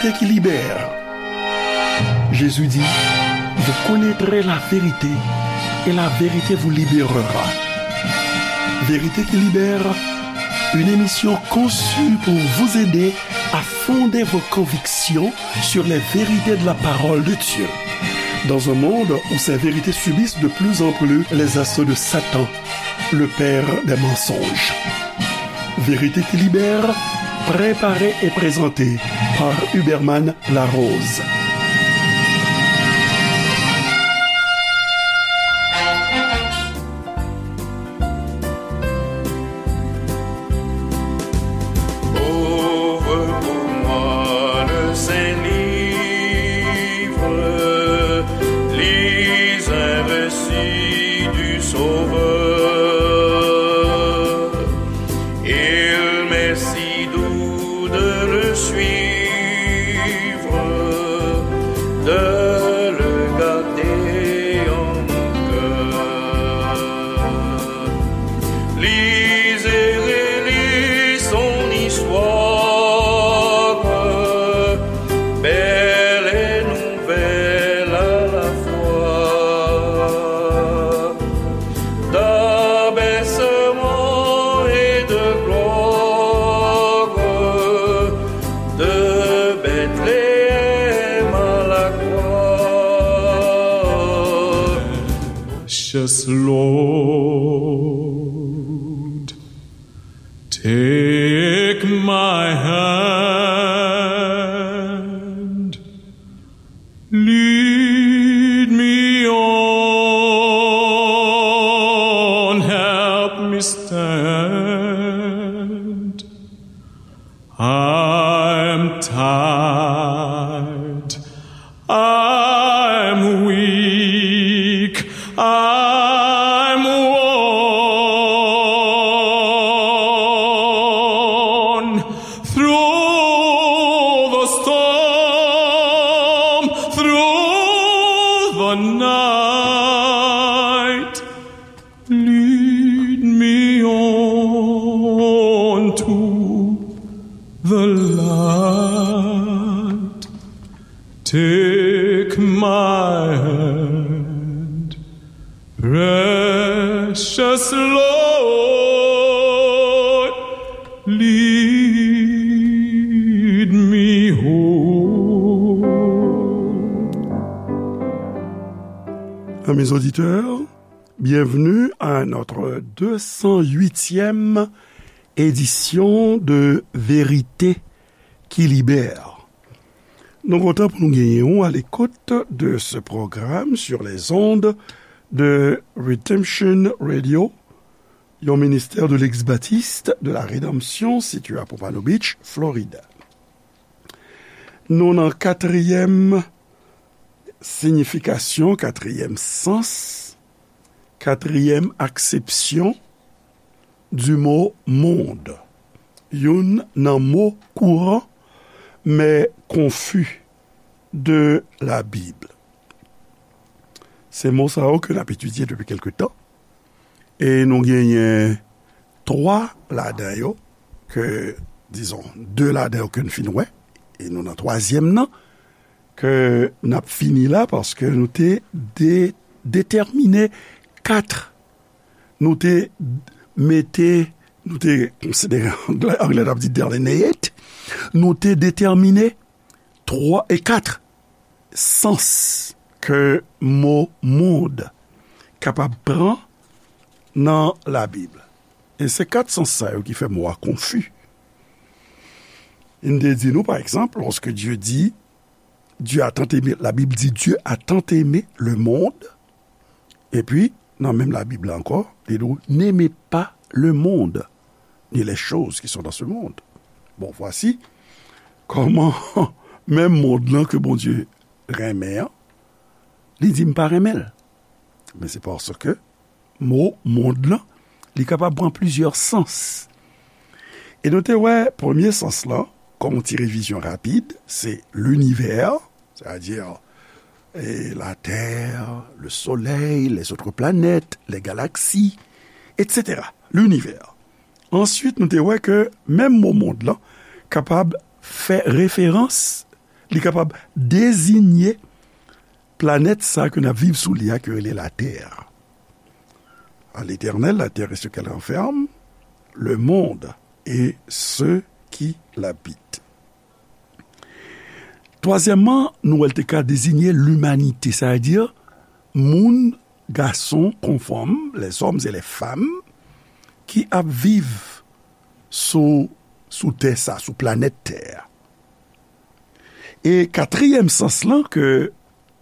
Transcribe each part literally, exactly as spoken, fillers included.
Vérité qui libère. Jésus dit, vous connaîtrez la vérité et la vérité vous libérera. Vérité qui libère, une émission conçue pour vous aider à fonder vos convictions sur les vérités de la parole de Dieu. Dans un monde où ces vérités subissent de plus en plus les assauts de Satan, le père des mensonges. Vérité qui libère, préparée et présentée par Huberman Larose. Ouvre pour moi le Saint-Livre, lis un récit du Sauveur. Il m'est si doux de le suivre, de le garder en mon cœur. Lis et relis son histoire, belle et nouvelle à la fois. D'abaissement et de gloire, de Bethléem à la croix. Precious Lord, take my hand, lead me on, help me stand. I'm tired, I'm weak, I'm worn. Through the storm, through the night, lead me on to the light. Take my hand, precious Lord, lead me home. Amis auditeurs, bienvenue à notre deux cent huitième édition de Vérité qui libère. Nou kontan pou nou genyen w à l'écoute de ce programme sur les ondes de Redemption Radio, yon ministè de l'ex-baptiste de la rédemption situé à Pompano Beach, Florida. Nou nan katriyèm siyifikasyon, katriyèm sans, katriyèm aksepsyon du mot monde. Youn nan mo kouran, men konfi de la Bib. Se mo sa yo ke n ap etidye depi kèlke tan. E nou genyen twa ladan yo ke, dizon, de ladan yo ke n fin wè. E nou nan twazyèm nan ke n ap fini la paske nou te de-, detèmine kat. Nou te mete, nou te konsidere, anglè, anglè t ap di delineate. Nou te detèmine twa e kat sans ke mo mond kapab pran nan Labib. E se kat sans sa yo ki fè mo a konfi. Li te di nou, pa egzanp, lorsque Dieu dit, Dieu a tant aimé, la Bible dit, Dieu a tant aimé le monde, epi, nan menm Labib la ankò, li di w, n'aimez pas le monde, ni les choses qui sont dans ce monde. Bon, voici kòman menm mond lan ke Bondye renmen an, li di m pa renmen l. Men se paske mo mond lan, li kapab pran plizyè sans. E nou te wè premye sans lan, kòm yon ti revizyon rapid, se linivè, sètadi, e, latè, le solèy, les autres planètes, les galaxies, et cetera. Linivè. Answit, nou te wè ke menm mo mond lan kapab fè referans, Li kapab deziye planèt sa ke n ap viv sou li a, ke rele Latè. À l'Éternel la terre et ce qu'elle renferme, le monde et ceux qui l'habitent. Twazyèmman, nou wè l te ka deziye limanite, sa vle di moun, gason kon fanm, les hommes et les femmes, ki ap viv sou, sou tè sa, sou planèt tè a. E katriyèm sans lan ke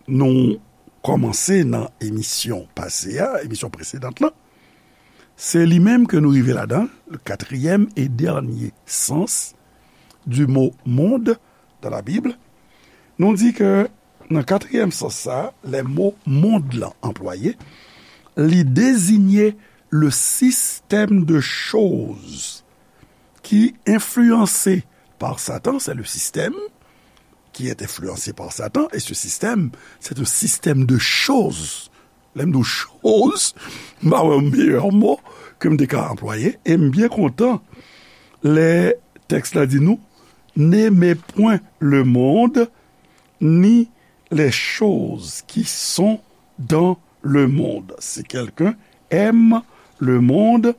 nou kòmanse nan emisyon pase a, emisyon presedan lan, se li menm ke nou rive ladan, le quatrième et dernier sens du mot monde dans la Bible. Nou di ke nan katriyèm sans sa, lè mo mond lan anplwaye, li deziye le système de choses qui, influencé par Satan, c'est le système qui est influencé par Satan, et ce système, c'est un système de choses. Lè m di w choz, m pa wè yon meyè mo ke m te ka anplwaye, e m byen kontan lè tèks la di nou, n'aimez point le monde, ni les choses qui sont dans le monde. Si quelqu'un aime le monde,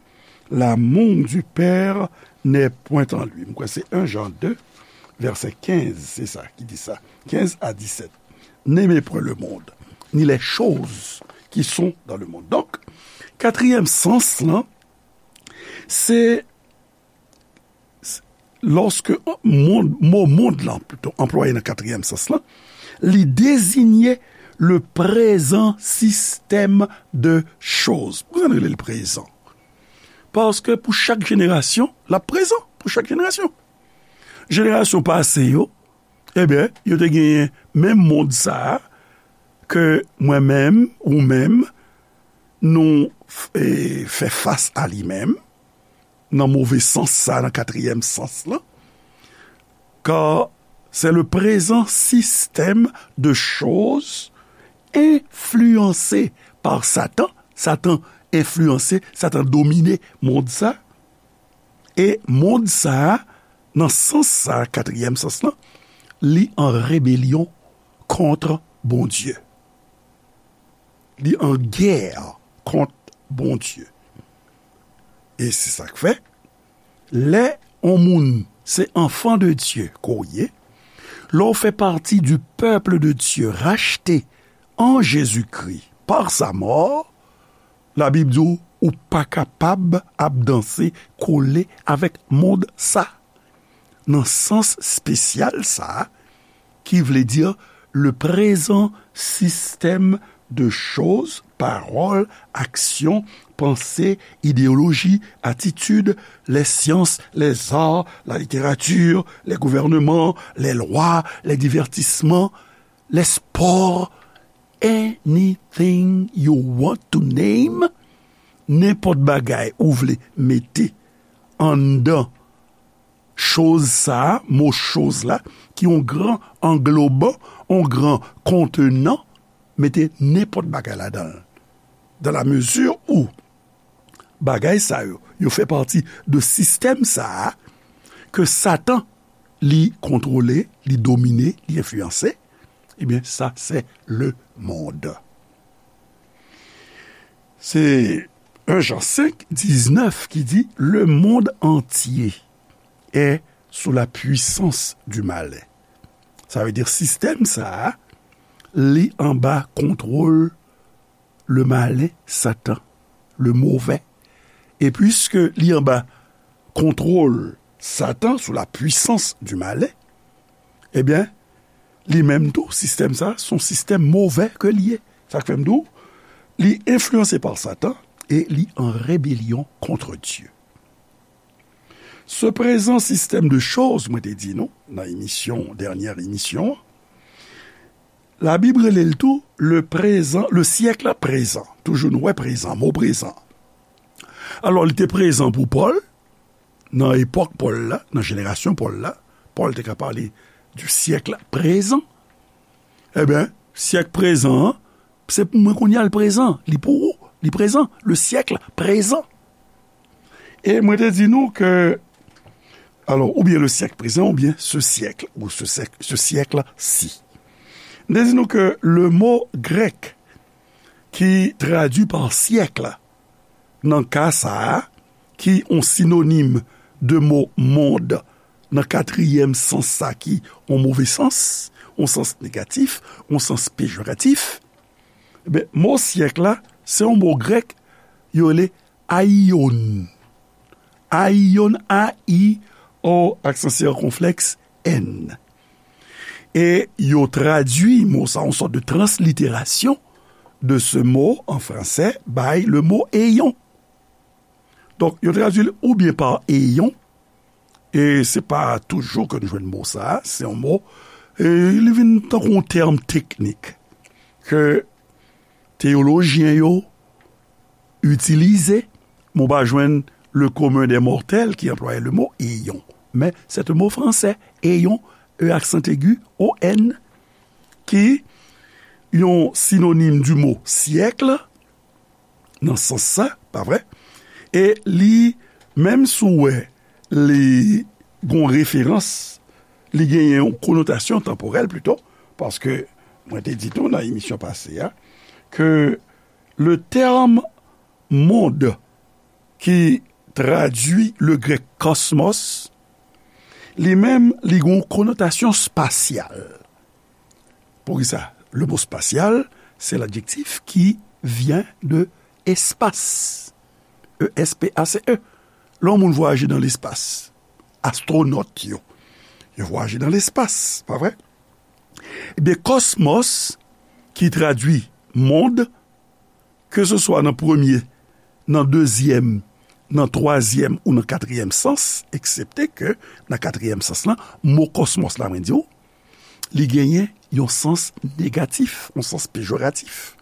l'amour du Père n'est point en lui. M kwè se un Jean deux, vèsè kenz, se sa ki di sa. Kenz a disèt. N'aimez point le monde, ni les choses qui sont dans le monde. Donk, katriyèm sans lan, se lòske mond, mo mond lan, pito, anplwaye nan katriyèm sans lan, li deziye le prezan sistèm de choz. Poukisa n rele l prezan? Paske pou chak jenerasyon, l ap prezan pou chak jenerasyon. Jenerasyon pase yo, ebyen, yo te genyen menm mond sa a ke mwen menm, ou menm, nou f-, e, fè fas a li menm, nan move sans sa, nan katriyèm sans lan, car c'est le présent système de choses influencé par Satan. Satan enfliyanse, Satan domine mond sa. E mond sa, nan sans sa, katriyèm sans lan, li an rebelyon kont Bondye. Li an gè kont Bondye. E se sa k fè, lè yon moun se enfant de Dieu ke w ye, lè w fè pati du peuple de Dieu racheté en Jésus-Christ par sa mort, Labib di w, ou pa kapab ap danse kole avèk mond sa. Nan sans espesyal sa a, ki vle di le prezan sistèm de choz, pawòl, aksyon, panse, ideyoloji, atitid, les sciences, les arts, la littérature, les gouvernements, les lois, les divertissements, les sports, anything you want to name, nenpòt bagay ou vle mete anndan choz sa a, mo choz la, ki yon gran angloban, yon gran kontenan, mete nenpòt bagay ladan l. Dans la mesure où bagay sa yo, yo fè pati de sistèm sa a, ke Satan, li kontwole, li domine, li enfliyanse, ebyen, sa se le monde. Se un Jean cinq, dix-neuf ki di, le monde entier est sous la puissance du malin. Sa vle di sistèm sa a, li anba kontwòl le malin, Satan, le mauvais. E piske li anba kontwòl Satan, sous la puissance du malin, ebyen, li menm tou, sistèm sa, se yon sistèm move ke li ye. Sa k fè m di w, li enfliyanse pa Satan e li an rebelyon kont Dye. Se prezan sistèm de choz, mwen te di nou, nan emisyon, dènyè emisyon an, Labib rele l tou le prezan, le syèk prezan. Toujou nou wè prezan, mo prezan. Alò, li te prezan pou Pòl, nan epòk Pòl la, nan jenerasyon Pòl la, Pòl te ka pale du siècle présent. Ebyen, syèk prezan an, se pou mwen kounye a l prezan, li pou ou, li prezan, le siècle présent. E mwen te di nou ke Alò, oubyen le siècle présent, oubyen ce siècle, ou ce siècle, ce siècle-ci. M te di nou ke le mo grèk ki tradui pa siècle, nan ka sa a, ki yon sinonim de mo monde, nan katriyèm sans sa ki yon move sans, yon sans negatif, yon sans pejoratif, ebyen, mo siècle la, se yon mo grèk, yo rele aion. Aion, A I O, aksan sikonflèks, N. E yo tradui mo sa, yon sòt de transliterasyon de ce mot en français, by le mot éon. Donk, yo tradui l oubyen pa éon, e se pa toujou ke nou jwenn mo sa, se yon mo, e li vin tankou yon tèm teknik ke teyolojyen yo itilize, men w pa jwenn le commun des mortels ki anplwaye le mo éon. Men, c'est un mot français, éon, E aksan egi, O N, ki yon sinonim du mot siècle, nan sans sa, pa vre? E li, menm si w wè li gon referans, li genyen yon konotasyon tanporèl plito, paske mwen te di tou nan emisyon pase a, ke le terme monde ki tradui le grèk kòsmòs, li menm, li gon konotasyon spasyal. Poukisa? Le mot spatial, c'est l'adjectif qui vient de espace. E S P A C E. Lè yon moun vwayaje nan lespas, astwonòt yo, yo vwayaje nan lespas, pa vre? Ebyen, kòsmòs, ki tradui monde, ke se swa nan premye, nan dezyèm, nan twazyèm ou nan katriyèm sans, eksepte ke nan katriyèm sans lan, mo kòsmòs la, mwen di w, li genyen yon sans negatif, yon sans pejoratif,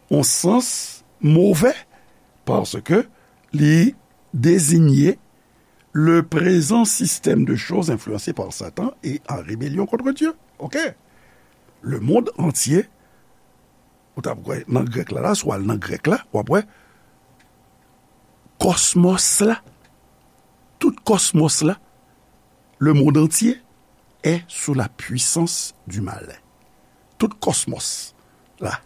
yon sans move, paske li deziye le présent système de choses influencé par Satan et en rébellion contre Dieu. Ok? Le monde entier, ou t ap wè nan grèk la, la, si w al nan grèk la, w ap wè kòsmòs la, tout kòsmòs la, le monde entier est sous la puissance du malin. Tout kòsmòs la.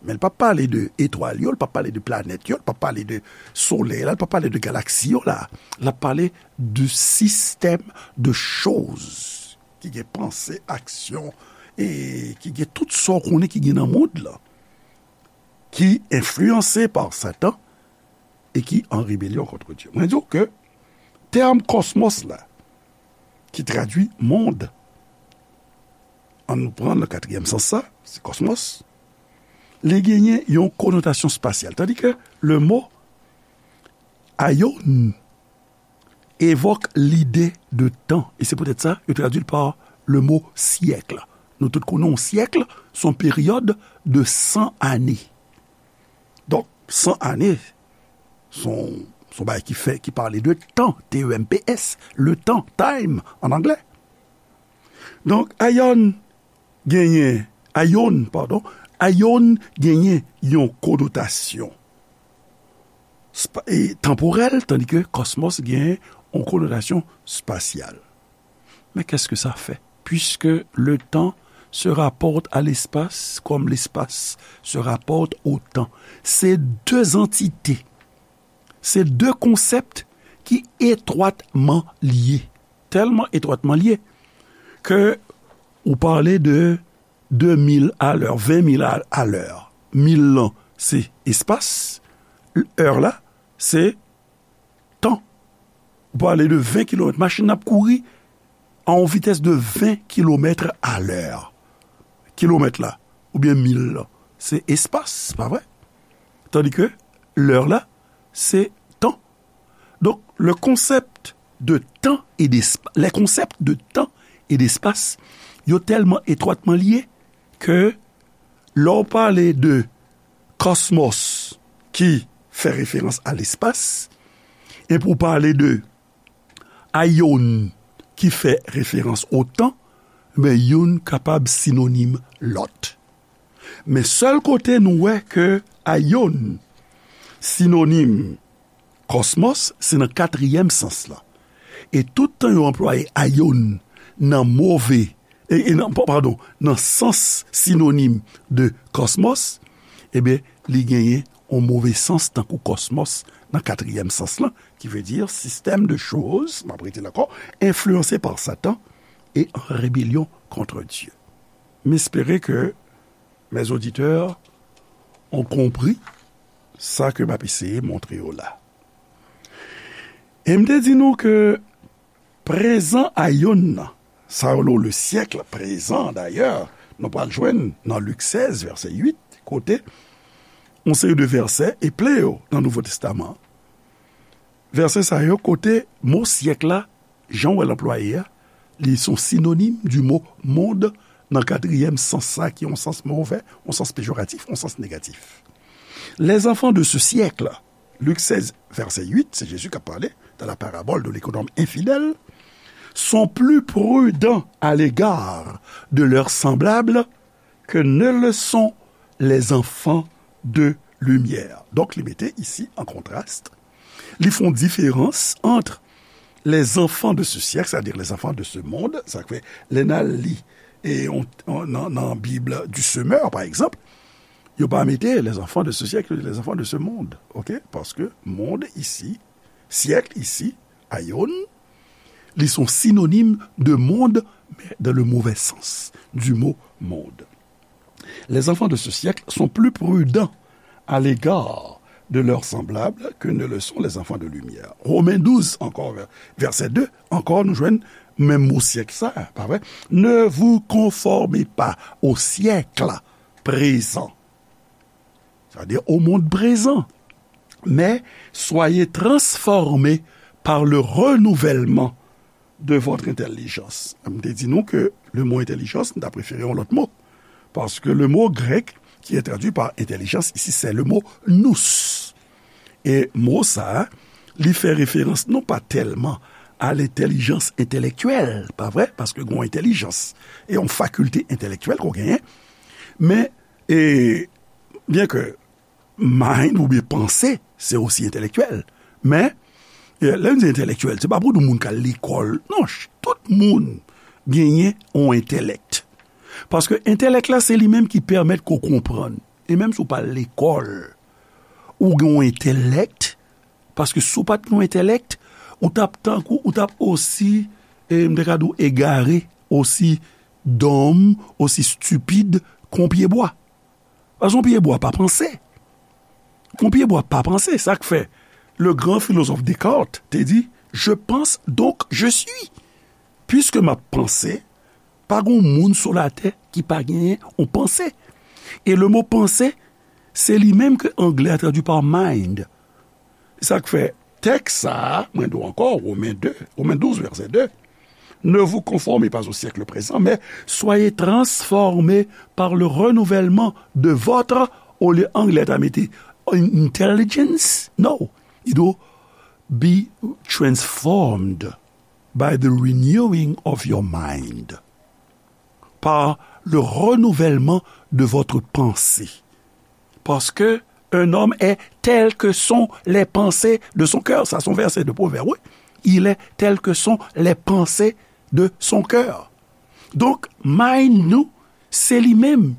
Men l p ap pale de etwal yo, l p ap pale de planèt yo, l p ap pale de solèy la, l p ap pale de galaksi yo la. L ap pale de système de choses ki gen panse, aksyon, e ki gen tout sa w konnen ki gen nan mond lan, ki enfliyanse pa Satan e ki an rebelyon kont Dye. Mwen di w ke tèm kòsmòs la, ki tradui mond, ann nou pran nan katriyèm sans sa, se kòsmòs, li genyen yon konotasyon spasyal. Tandis ke le mo aion evòk lide de tan. E se poutèt sa, yo tradui l pa le mo syèk. Nou tout konnen yon syèk, se yon peryòd de san ane. Donk, san ane, se yon, se yon bagay ki fè, ki pale de tan, T E M P S, le temps, time, an anglè. Donk, aion genyen, aion, padon, aion genyen yon konotasyon spa-, e, tanporèl, tandis que kòsmòs genyen yon konotasyon spasyal. Mais qu'est-ce que ça fait? Puisque le temps se rapporte à l'espace comme l'espace se rapporte au temps. Se de antite, se de konsèp ki etwatman lye. Tèlman etwatman lye ke ou pale de de mil alè, ven mil alè. Mil lan, se espas. È la, se tan. Ou pale de ven kilomèt. Machin nan ap kouri a yon vitès de ven kilomèt alè. Kilomèt la, oubyen mil lan, se espas, pa vre? Tandis que lè la, se tan. Donk, le concept de temps et d'esp-, les concepts de temps et d'espace, yo tèlman etwatman lye ke lè w pale de kòsmòs ki fè referans a lespas, epi w pale de aion ki fè referans o tan, men youn kapab sinonim lòt. Men sèl kote nou wè ke aion sinonim kòsmòs, se nan katriyèm sans lan. E tout tan yo anplwaye aion nan move, e, e nan, pa- padon, nan sans sinonim de kòsmòs, ebyen, li genyen yon move sans tankou kòsmòs nan katriyèm sans lan, ki vle di sistèm de choz, m ap rete l ankò, enfliyanse pa Satan e an rebelyon kont Dye. M espere ke mes auditeurs ont compris sa ke m ap eseye montre yo la. E m te di nou ke prezan aion nan, sa yo le syèk prezan dayè, nou pral jwenn nan Lik sèz, vèsè uit, kote yon seri de vèsè e ple yo nan Nouvo Testaman. Vèsè sa yo kote mo syèk la, jan w wè l anplwaye a, li se yon sinonim di mo monde nan katriyèm sans sa, ki yon sans movè, yon sans pejoratif, yon sans negatif. Les enfants de ce siècle, Lik sèz, vèsè uit, se Jezi k ap pale, dans la parabole de l'économe infidèle, sont plus prudents à l'égard de leurs semblables que ne le sont les enfants de lumière. Donk, li mete isi an kontras, li fè yon diferans ant les enfants de ce siècle, c'est-à-dire les enfants de ce monde, sa k fè, lè n al li, e, on, on, nan, nan Bib du Semeur, pa egzanp, yo pa mete les enfants de ce siècle, les enfants de ce monde, ok? Paske monde isi, syèk isi, aion, li se yon sinonim de monde, mais dans le mauvais sens du mot monde. Les enfants de ce siècle sont plus prudents à l'égard de leurs semblables que ne le sont les enfants de lumière. Romains douze, encore, vè- verset deux, encore, nou jwenn menm mo syèk sa, pa vre? Ne vous conformez pas au siècle présent, c'est-à-dire au monde présent, mais soyez transformés par le renouvellement de votre intelligence. M te di nou ke le mo entèlijans, m ta prefere yon lòt mo. Paske le mo grèk qui est traduit par intelligence ici, c'est le mot nous. E mo sa a, li fè referans non pa tèlman a lentèlijans entèlektyèl, pa vre? Paske gen yon entèlijans e yon fakilte entèlektyèl ke w genyen. Men, e, byen ke mind oubyen panse, se osi entèlektyèl. Men, e, lè n di entèlektyèl, se pa pou di moun k al lekòl. Non, ch- tout moun genyen yon entèlèk. Paske entèlèk la, se li menm ki pèmèt ke w konprann. E menm si w pa al lekòl, ou gen yon entèlèk, paske si w pa t gen yon entèlèk, ou t ap tankou, ou t ap osi, e, m te ka di w egare, osi dòm, osi stipid ke yon pye bwa. Paske yon pye bwa pa panse. Yon pye bwa pa panse. Sa k fè le grand philosophe Descartes te di, je pense, donc je suis. Piske m ap panse, pa gen moun sou latè ki pa genyen yon panse. E le mo panse, se li menm ke anglè a tradui pa mind. Sa k fè tèks sa a, mwen di w ankò, Women de, Women douz, vèsè de, ne vous conformez pas au siècle présent, mais soyez transformés par le renouvellement de votre, olye anglè ta mete intelligence, no, li di w be transformed by the renewing of your mind, par le renouvellement de votre pensée. Parce que un homme est tel que sont les pensées de son cœur. Sa se yon vèsè de Pwovèb, wi. Il est tel que sont les pensées de son cœur. Donk, mind nou, se li menm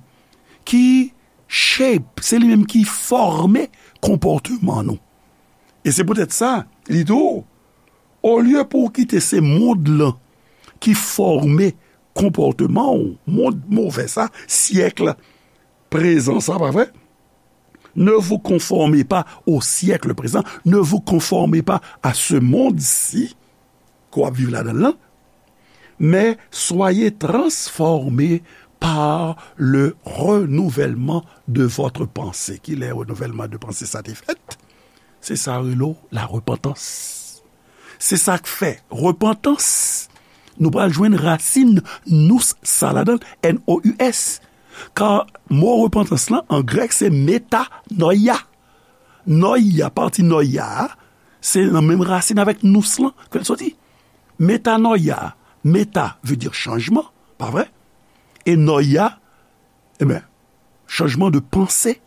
ki shape, se li menm ki fòme konpòteman nou. E se poutèt sa, li di w, olye pou w kite se mond lan ki fòme konpòteman w, mond move sa, syèk prezan sa, pa vre? Ne vous conformez pas au siècle présent, ne vous conformez pas à ce monde-ci ke w ap viv ladan l lan, mais soyez transformés par le renouvellement de votre pensée. Kilè renouvèlman de panse sa te fèt? Se sa yo rele la repantans. Se sa k fè repantans, nou pral jwenn rasin nous sa ladan l, N O U S. Ka mo repantans lan, an grèk, se metanoia. Noia, pati noia a, se nan menm rasin avèk nous lan ke l soti. Metanoia, meta vle di chanjman, pa vre? E noia, e ben, chanjman de panse.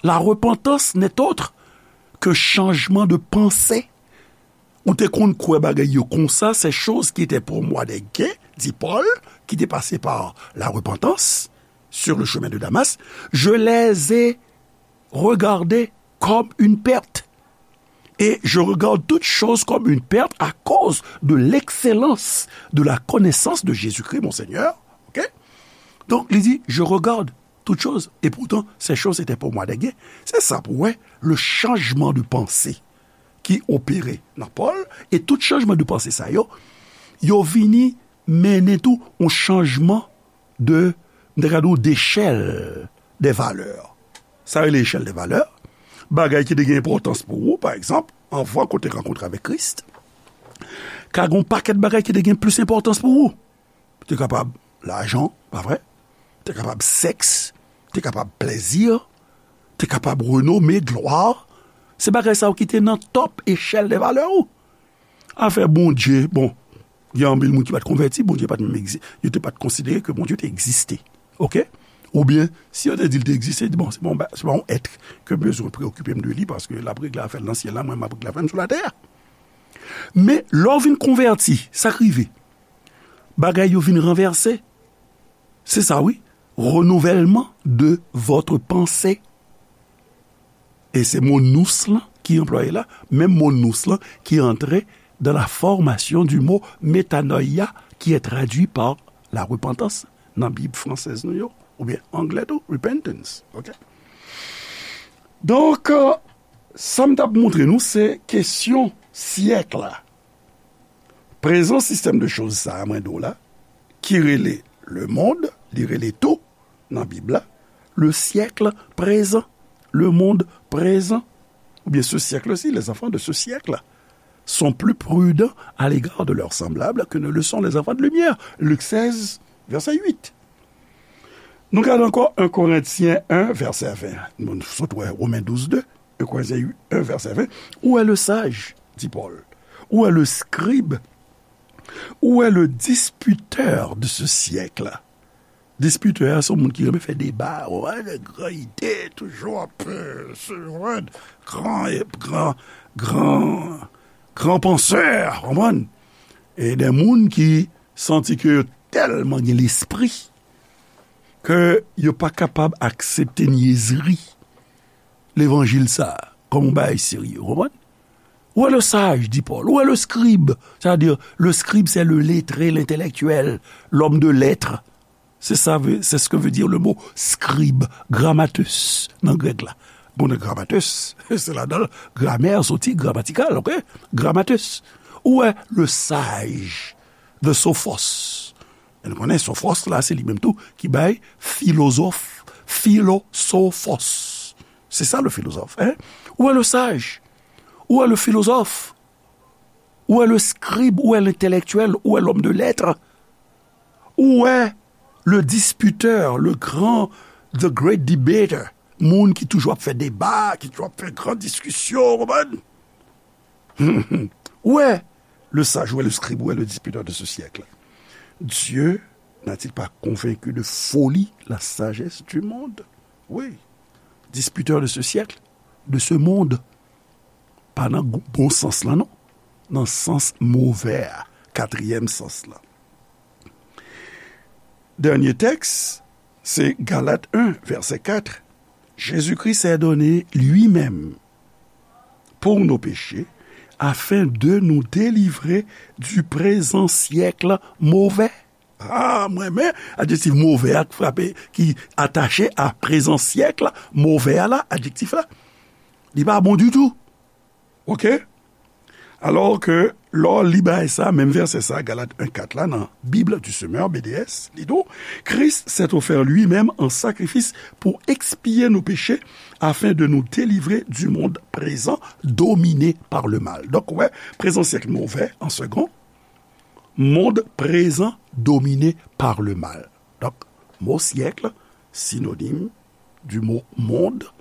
La repentance n'est autre que changement de pensée. ou te konn kwè bagay yo konsa, ces choses qui étaient pour moi des gains, dit Paul, qui étaient passées par la repentance sur le chemin de Damas, je les ai regardées comme une perte. Et je regarde toutes choses comme une perte à cause de l'excellence de la connaissance de Jésus-Christ, mon Seigneur. OK? Donk, li di, je regarde toutes choses, et pourtant, ces choses étaient pour moi des gains. Se sa pou wè, le changement de pensée ki opere nan Pòl, e tout chanjman de panse sa yo, yo vini mennen tou yon chanjman de, m ta ka di w, dechèl de valè. Sa rele echèl de valè. Bagay ki te gen enpòtans pou ou, pa egzanp, anvan ke w te rankontre avèk Kris, ka gen yon pakèt bagay ki te gen plis enpòtans pou ou. Te kapab lajan, pa vre? Te kapab sèks, te kapab plèzi, te kapab renome, glwa. Se bagay sa yo ki te nan top echèl de valè ou. Afè Bondye, bon, gen anpil moun ki pa t konvèti, Bondye pa t menm egzi-, yo te pa t konsidere ke Bondye te egziste. OK? Oubyen, si yo te di l te egziste, yo di, bon, se pa yon ba-, se pa yon èt ke m bezwen preokipe m de li, paske l ap regle afè l nan syèl la, mwen m ap regle afè m sou latè a. Men, lè w vin konvèti, sa k rive? Bagay yo vin ranvèse. Se sa, wi. Renouvellement de votre pensée. E se mo nous lan ki anplwaye la, menm mo nous lan ki antre dans la formation du mot metanoia, qui est traduit par la repentance nan Bib fransèz nou yo, oubyen anglè tou, repentance. OK? Donk, euh, sa m t ap montre nou, se kesyon syèk la. Prezan sistèm de choz sa a, mwen di w la, ki rele le monde, li rele tou nan Bib la, le siècle présent, le monde présent, oubyen ce siècle-ci, les enfants de ce siècle sont plus prudents à l'égard de leurs semblables que ne le sont les enfants de lumière. Lik sèz, vèsè uit. Nou gade ankò en Korentyen en, vèsè ven. Nou sot wè Women douz de, en Korentyen en, vèsè ven. Où est le sage, dit Paul? Où est le scribe? Où est le disputeur de ce siècle? Dispitè a, se yon moun ki renmen fè deba, w konprann, gran ide, toujou ap, euh, se, w konprann, gran, gran, gran, gran pansè, w konprann? E de moun ki santi ke yo tèlman gen lespri ke yo pa kapab aksepte nyezri levanjil sa a kòm yon bagay serye, w konprann? Où est le sage, dit Paul? Où est le scribe? C'est-à-dire, le scribe, c'est le lettré, l'intellectuel, l'homme de lettres. C'est ça, c'est ce que veut dire le mot scribe, grammateus, nan grèk la. Bon, grammateus, se ladan l gramè soti, gramatikal, OK? Grammateus. Où est le sage? The sophos. E nou konnen sophos la, se li menm tou ki bay filozòf, filosophos. C'est ça le philosophe, hein? Où est le sage? Où est le philosophe? Où est le scribe? Où est l'intellectuel? Où est l'homme de lettres? Où est le disputeur, le grand, the great debater? Moun ki toujou ap fè deba, ki toujou ap fè gran diskisyon, w konprann? Où est le sage, où est le scribe, où est le disputeur de ce siècle? Dieu n'a-t-il pas convaincu de folie la sagesse du monde? Oui, disputeur de ce siècle, de ce monde. Pa nan gou-, bon sans lan, non. Nan sans move a, katriyèm sans lan. Dènye tèks, se Galat en, vèsè kat. Jésus-Christ s'est donné lui-même pour nos péchés, afin de nous délivrer du présent siècle mauvais. Ah, mwen renmen adjektif move a k frape, ki atache a prezan syèk la, move a la, adjektif la. Li pa bon ditou. OK? Alò ke, lè w li bagay sa, menm vèsè sa, Galat en kat la, nan Bible du Semeur, B D S, li di w, Christ s'est offert lui-même en sacrifice pour expier nos péchés, afin de nous délivrer du monde présent dominé par le mal. Donk, ou wè, prezan syèk move, an segon, monde présent dominé par le mal. Donk, mo syèk, sinonim du mot monde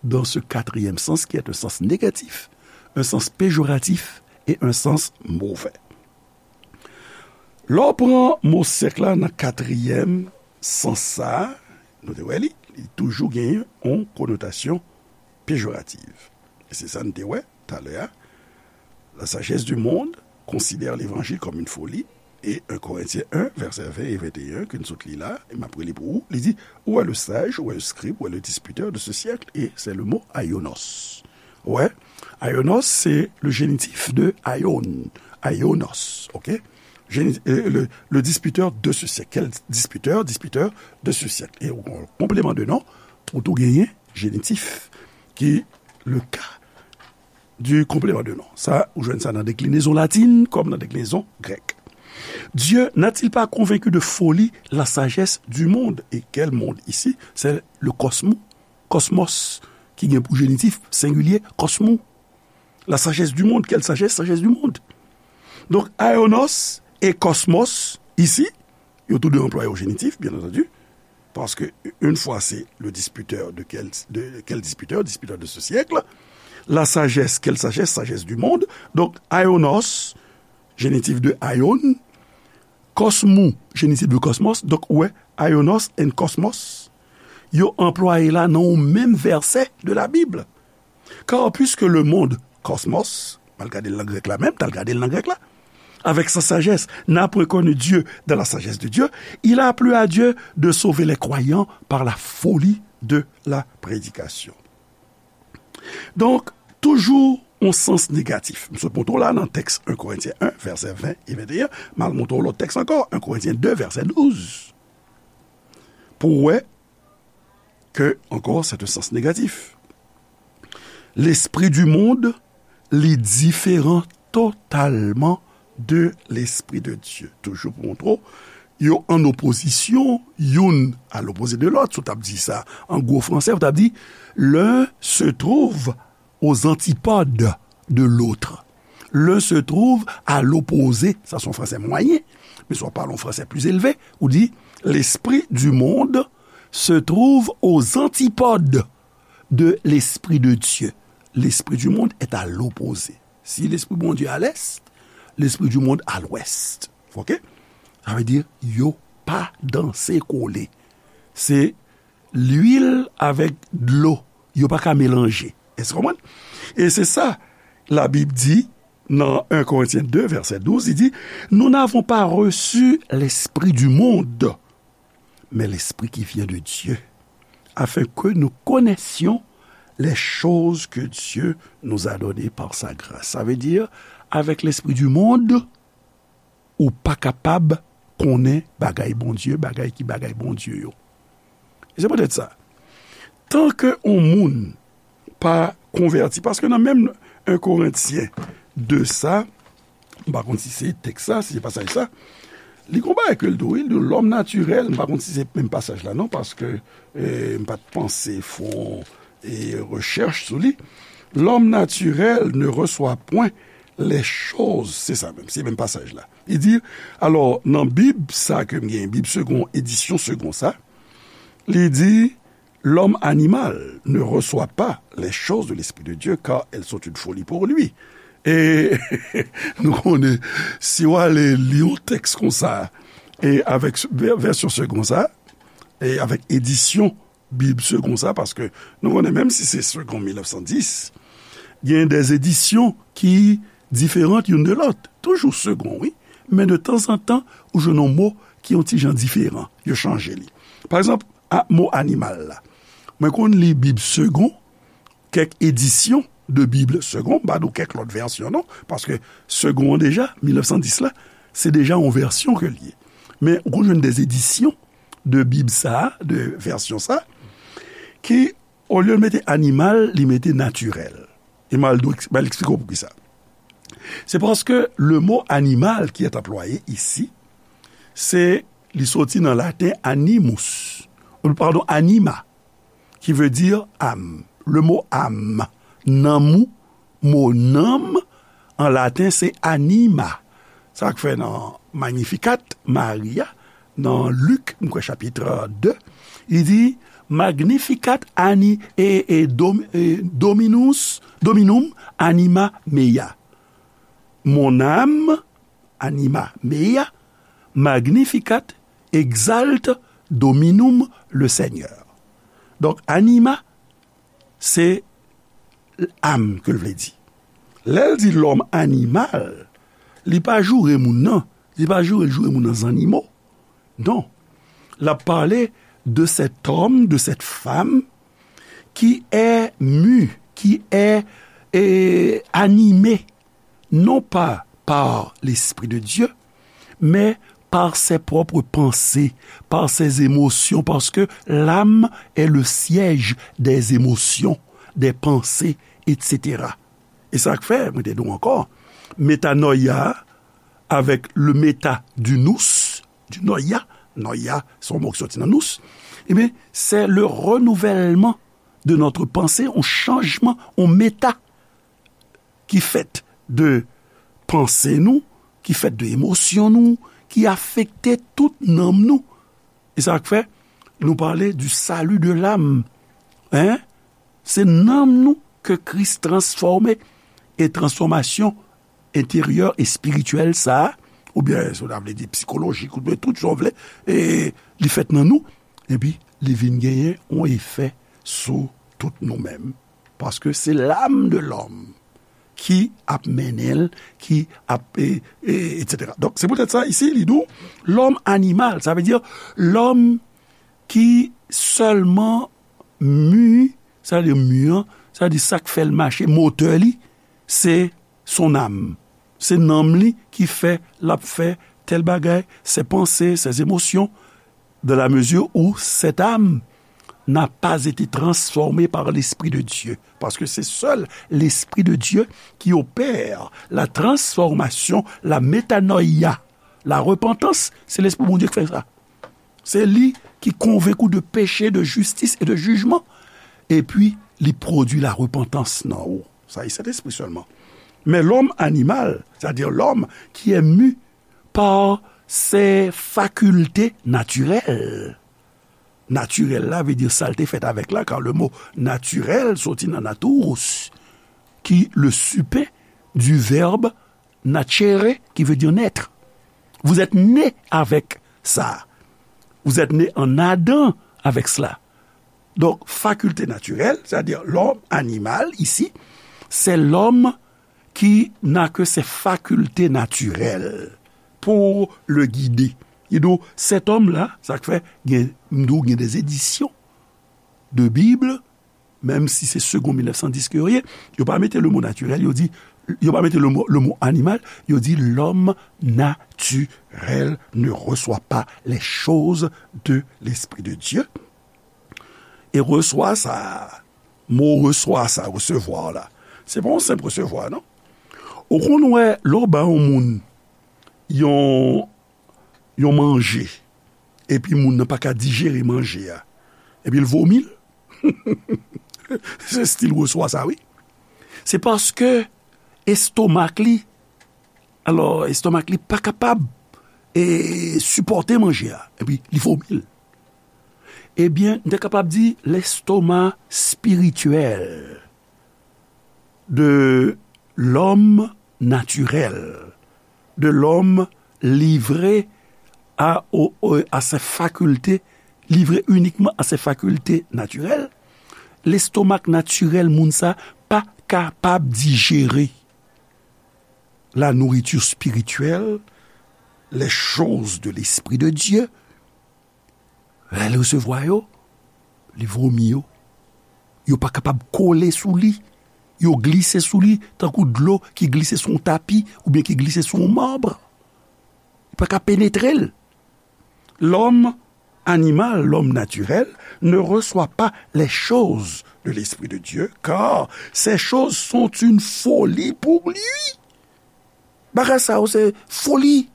dans ce quatrième sens qui est un sens négatif, un sens péjoratif et un sens mauvais. Lè w pran mo syèk la nan katriyèm sans sa a, nou te wè li, li toujou genyen yon konotasyon pejorativ. E se sa n te wè talè a. La sagesse du monde considère l'évangile comme une folie. Et un Corinthiens un, verset vingt et vingt et un, ke n sot li la, e m ap reli pou ou, li di, où est le sage, où est le scribe, où est le disputeur de ce siècle? Et c'est le mot aïonos. Ouais, aïonos, c'est le génitif de aion, aïonos, ok? Géni- euh, le, le disputeur de ce siècle. Quel disputeur? Disputeur de ce siècle. Et au complément de nom, ou tou genyen génitif, ki le cas du complément de nom. Sa, ou jwenn sa nan deklinezon latin kòm nan deklinezon grèk. Dieu n'a-t-il pas convaincu de folie la sagesse du monde? Et quel monde ici? C'est le cosmos, cosmos, ki gen pou génitif sengilye, cosmos. La sagesse du monde, quelle sagesse? Sagesse du monde. Donc, aïonos et cosmos, ici, yo tou de anplwaye au génitif, bien entendu, parce que une fois c'est le disputeur de quel, de quel disputeur? Disputeur de ce siècle. La sagesse, quelle sagesse? Sagesse du monde. Donc, aïonos, génitif de aion, cosmos, génitif de cosmos. Donc, ouais, aïonos and cosmos, yo anplwaye la nan yon menm vèsè de la Bible. Car puisque le monde, cosmos, m al gade l nan grèk la menm, t al gade l nan grèk la, avec sa sagesse, n'a point connu Dieu dans la sagesse de Dieu, il a plu à Dieu de sauver les croyants par la folie de la prédication. Donk, toujou yon sans negatif. M sot montre w la nan tèks un Korentyen un, vèsè ven e venteyen, m al montre w lòt tèks ankò, un Korentyen de, vèsè douz. Pou w wè ke, ankò, c'est un sens négatif. L'esprit du monde, li diferan totalman de l'esprit de Dieu. Toujou pou montre w, yo an opozisyon, youn à l'opposé de l'autre. Si w t ap di sa an gwo fransè, w t ap di, l'un se trouve aux antipodes de l'autre. L'un se trouve à l'opposé. Sa se yon fransè mwayen. Men si w ap pale yon fransè plis elve, ou di, l'esprit du monde se trouve aux antipodes de l'esprit de Dieu. L'esprit du monde est à l'opposé. Si l'esprit Bondye à l'est, l'esprit du monde à l'ouest. Ok? Sa vle di, yo pa danse kole. Se lwil avèk dlo. Yo pa ka melanje. Èske w konprann? E se sa, Labib di nan un Korentyen de, vèsè douz, li di, nous n'avons pas reçu l'esprit du monde, mais l'esprit qui vient de Dieu, afin que nous connaissions les choses que Dieu nous a données par sa grâce. Sa vle di, avèk l'esprit du monde, ou pa kapab konnen bagay Bondye, bagay ki bagay Bondye yo. E se poutèt sa, tan ke yon moun pa konvèti, paske nan menm un Korentyen de sa, m pa konn si se tèks sa, si se pasaj sa, li gon bagay ke l di, wi, l di, l'homme naturel, m pa konn si se menm pasaj la, non, paske, eh, m pa t panse fè yon, eh, rechèch sou li. L'homme naturel ne reçoit point les choses, se sa menm, se menm pasaj la. Li di, alò, nan Bib sa ke m gen, Bib Segond, edisyon Segond sa, li di, l'homme animal ne reçoit pas les choses de l'Esprit de Dieu, car elles sont une folie pour lui. E nou konnen, si w ale li yon tèks konsa, e avèk vè-, vèsyon Segond sa, e avèk edisyon Bib Segond sa, paske nou konnen, menm si se Segond mil nèf san dis, gen de edisyon ki diferan youn de lòt. Toujou Segond, wi, men de tanzantan, ou jwenn yon mo ki yon ti jan diferan. Yo chanje li. Pa egzanp, a, mo animal la. Mwen konn li Bib Segond, kèk edisyon de Bib Segond, m pa di w kèk lòt vèsyon, non, paske Segond an deja, mil nèf san dis la, se deja yon vèsyon ke l ye. Men ou konn jwenn de edisyon de Bib sa, de vèsyon sa, ki, olye l mete animal, li mete natirèl. E m al, m al eksplike w poukisa. Se paske le mot animal qui est employé ici, se, li soti nan laten animus, ou, padon, anima, qui veut dire âme. Le mot âme, nanm ou, mo nanm, an laten, se anima. Sa k fè nan Magnificat Maria, nan Lik, m kwè chapit de, li di, Magnificat ani-, e, e, dom-, e, dominus, dominum anima mea. Mon âme, anima mea, magnificat, exalte dominum, le Seigneur. Donk, anima, se âme ke l vle di. Lè l di lòm animal, li pa joure moun nan, li pa joure, joure moun nan zannimo. Non. L ap pale de cet homme, de cette femme qui est mu, qui est, eh, animé, non pas par l'Esprit de Dieu, mais par ses propres pensées, par ses émotions, parce que l'âme est le siège des émotions, des pensées, et cetera. E sa k fè, mwen te di w ankò, metanoia avèk le meta du nous, du noia, noia, se yon mo ki soti nan nous, ebyen, c'est le renouvellement de notre pensée, yon chanjman, yon meta ki fèt de panse nou, ki fèt de emosyon nou, ki afekte tout nanm nou. E sa k fè, nou pale du salut de l'âme. Hein? Se nanm nou ke Kris transfòme. E transfòmasyon enteryè espirityèl sa a, oubyen, si w ta vle di psikolojik, oubyen tout sa w vle, e li fèt nan nou, epi li vin genyen yon efè sou tout nou menm. Paske se l'âme de l'homme ki ap mennen l, ki ap, e, e, et cetera. Donk, se poutèt sa, isi, li di w, lòm animal, sa vle di lòm ki sèlman mu, sa vle di mu an, sa vle di sa k fè l mache, motè li, se son âme. Se nanm li ki fè l ap fè tèl bagay, ses pensées, ses émotions, dans la mesure où cette âme n'a pas été transformée par l'Esprit de Dieu. Parce que c'est seul l'Esprit de Dieu qui opère la transformation, la métanoïa. La repentance, c'est l'Esprit de Dieu qui fait ça. Se li ki konvenk ou de peche, de jistis e de jijman. Epi, li pwodui larepantans nan ou. Sa e Sentespri sèlman. Men lòm animal, c'est-à-dire l'homme qui est mu par ses facultés naturelles. Natirèl la vle di sa l te fèt avèk la, car le mot naturel soti nan natus, ki le supe du verbe nacere, qui veut dire naître. Vous êtes né avec ça. Vous êtes né en Adam avec cela. Donc, faculté naturelle, c'est-à-dire l'homme animal ici, c'est l'homme qui n'a que ses facultés naturelles pour le guider. Li di w, cet homme-là, sa k fè, gen, m di w, gen des éditions de Bible, menm si se Segond mil nèf san dis ke yo ye, yo pa mete le mot naturel, yo di, yo pa mete le mot, le mot animal, yo di l'homme naturel ne reçoit pas les choses de l'Esprit de Dieu. E reswa sa, mo reswa sa, resevwa la, se pa yon senp resevwa, non. Ou konn wè, lè w ba yon moun yon, yon manje, epi moun nan pa ka dijere manje a, epi l vomi l. Se estil reswa sa, wi. Se paske estomak li, alò, estomak li pa kapab, e, sipòte manje a, epi li vomi l. Ebyen, n te kapab di l'estomac spirituel de l'homme naturel, de l'homme livré à, au, au, à ses facultés, livré uniquement à ses facultés naturelles, lestomak natirèl moun sa pa kapab dijere la nourriture spirituelle, les choses de l'Esprit de Dieu. Lè l resevwa yo, li vomi yo. Yo pa kapab kole sou li. Yo glise sou li tankou dlo ki glise sou yon tapi oubyen ki glise sou yon mab. Li pa ka penetre l. L'homme animal, l'homme naturel, ne reçoit pas les choses de l'Esprit de Dieu, car ces choses sont une folie pour lui. Bagay sa yo se foli,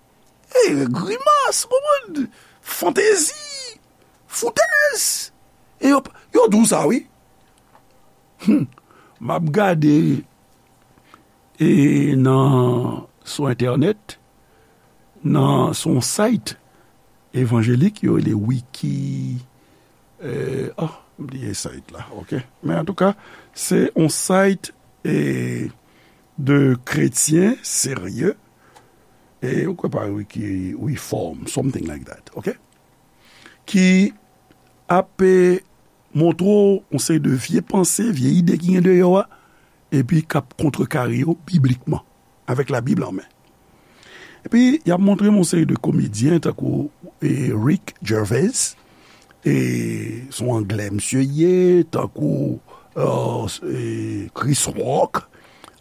e, grimas, ou konprann? Fantezi, foutèz. E yo, yo di w sa, wi. Hum. M ap gade, e, nan, sou entènèt, nan, sou yon site evanjelik, yo rele Wiki, e, oh, m bliye site la, ok? Men antouka, se yon site, e, de kretyen serye, e, ou kwè pa Wiki, Reform, something like that, ok? Ki ap, e, montre w yon seri de vye panse, vye ide ki gen deyò a, epi k ap kontrekare yo biblikman, avèk Labib an men. Epi, y ap montre m yon seri de komedyen, tankou, e, Rick Gervais, e, se yon Anglè misye ye, tankou, e, e, Chris Rock,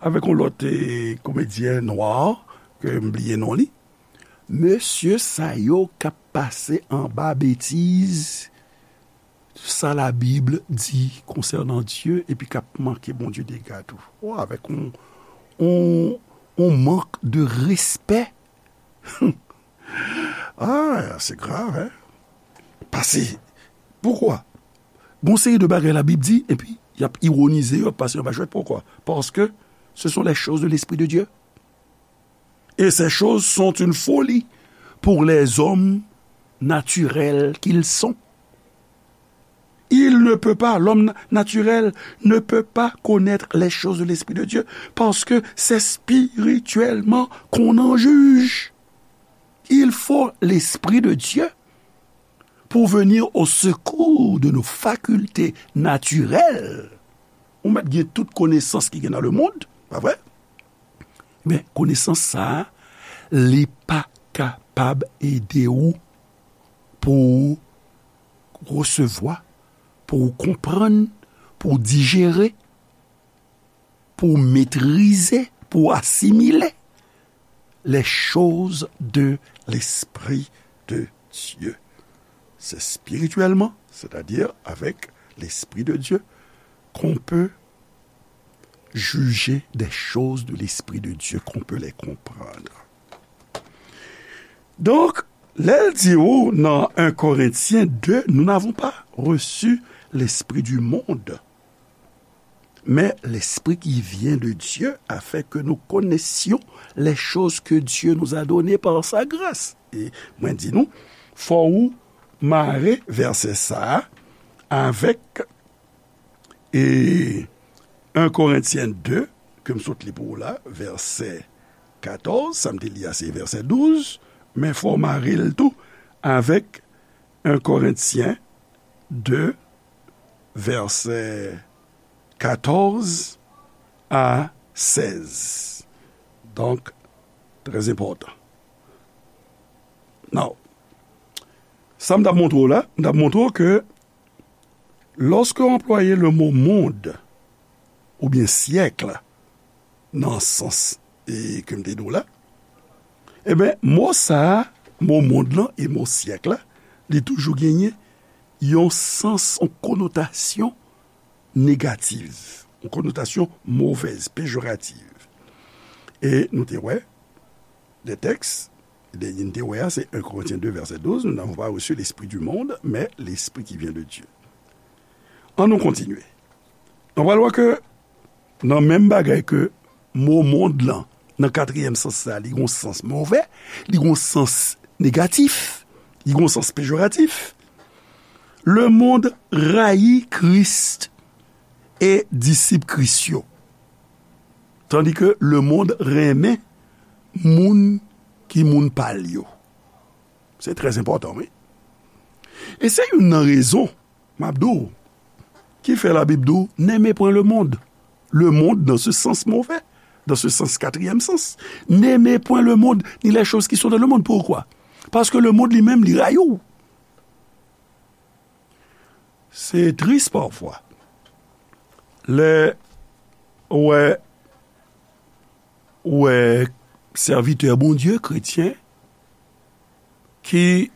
avèk yon lòt, e, komedyen nwa, ke m bliye non li. Mesye sa yo k ap pase anba betiz sa Labib di konsènan Dye, epi k ap manke Bondye dega tou. O, avèk yon, yon, yon mank de respè. Ah, se grav, hein? Pase, poukwa? Gon seri de bagay Labib di, epi y ap iwonize yo, y ap pase yo anba jwèt. Poukwa? Parce que ce sont les choses de l'Esprit de Dieu. Et ces choses sont une folie pour les hommes naturels qu'ils sont. Il ne peut pas, l'homme na- naturel ne peut pas connaître les choses de l'Esprit de Dieu, parce que c'est spirituellement qu'on en juge. Il faut l'Esprit de Dieu pour venir au secours de nos facultés naturelles. Ou mèt gen tout konesans ki gen nan lemonn, pa vre? Men konesans sa a, li pa kapab ede w pou w resevwa, pou w konprann, pou w dijere, pou w metrize, pou w asimile les choses de l'Esprit de Dieu. C'est spirituellement, c'est-à-dire avec l'Esprit de Dieu, qu'on peut juger des choses de l'Esprit de Dieu, qu'on peut les comprendre. Donk, lè l di w nan un Corinthiens deux, nous n'avons pas reçu l'esprit du monde, mais l'Esprit qui vient de Dieu, afin que nous connaissions les choses que Dieu nous a données par sa grâce. E mwen di nou, fò ou mare vèsè sa a avèk, e, un Corinthiens deux, ke m sot li pou ou la, vèsè katòz, sa m te li a se vèsè douz, men fò w mare l tou avèk un Corinthiens deux, vèsè katòz a sèz. Donk, trè enpòtan. Now, sa m t ap montre w la, m t ap montre w ke lòske w anplwaye le mo monde oubyen siècle nan sans, e, ke m te di w la, ebyen, mo sa a, mo mond lan e mo syèk la, li toujou genyen yon sans, yon konotasyon negatif, yon konotasyon movèz, pejoratif. E nou te wè, de tèks, de, nou te wè a, se un Corinthiens deux, vèsè douz, nous n'avons pas reçu l'esprit du monde, mais l'esprit qui vient de Dieu. An nou kontinye. Nou pral wè ke nan menm bagay ke mo mond lan, nan katriyèm sans sa, li gon sans movè, li gon sans negatif, li gon sans pejoratif. Le monde rayi Kris e disip Kris yo, tandi ke le monde renmen moun ki moun pa l yo. Se trè enpòtan, wi. E se youn nan rezon, m ap di w, ki fè Labib di w, n'aimez point le monde. Le monde dans ce sens mauvais, dans ce sens quatrième sens. N'aimez point le monde, ni les choses qui sont dans le monde. Pourquoi? Paske le monde li menm, li rayi w. Se tris pafwa. Lè ou wè, ou wè sèvitè Bondye, kretyen, ki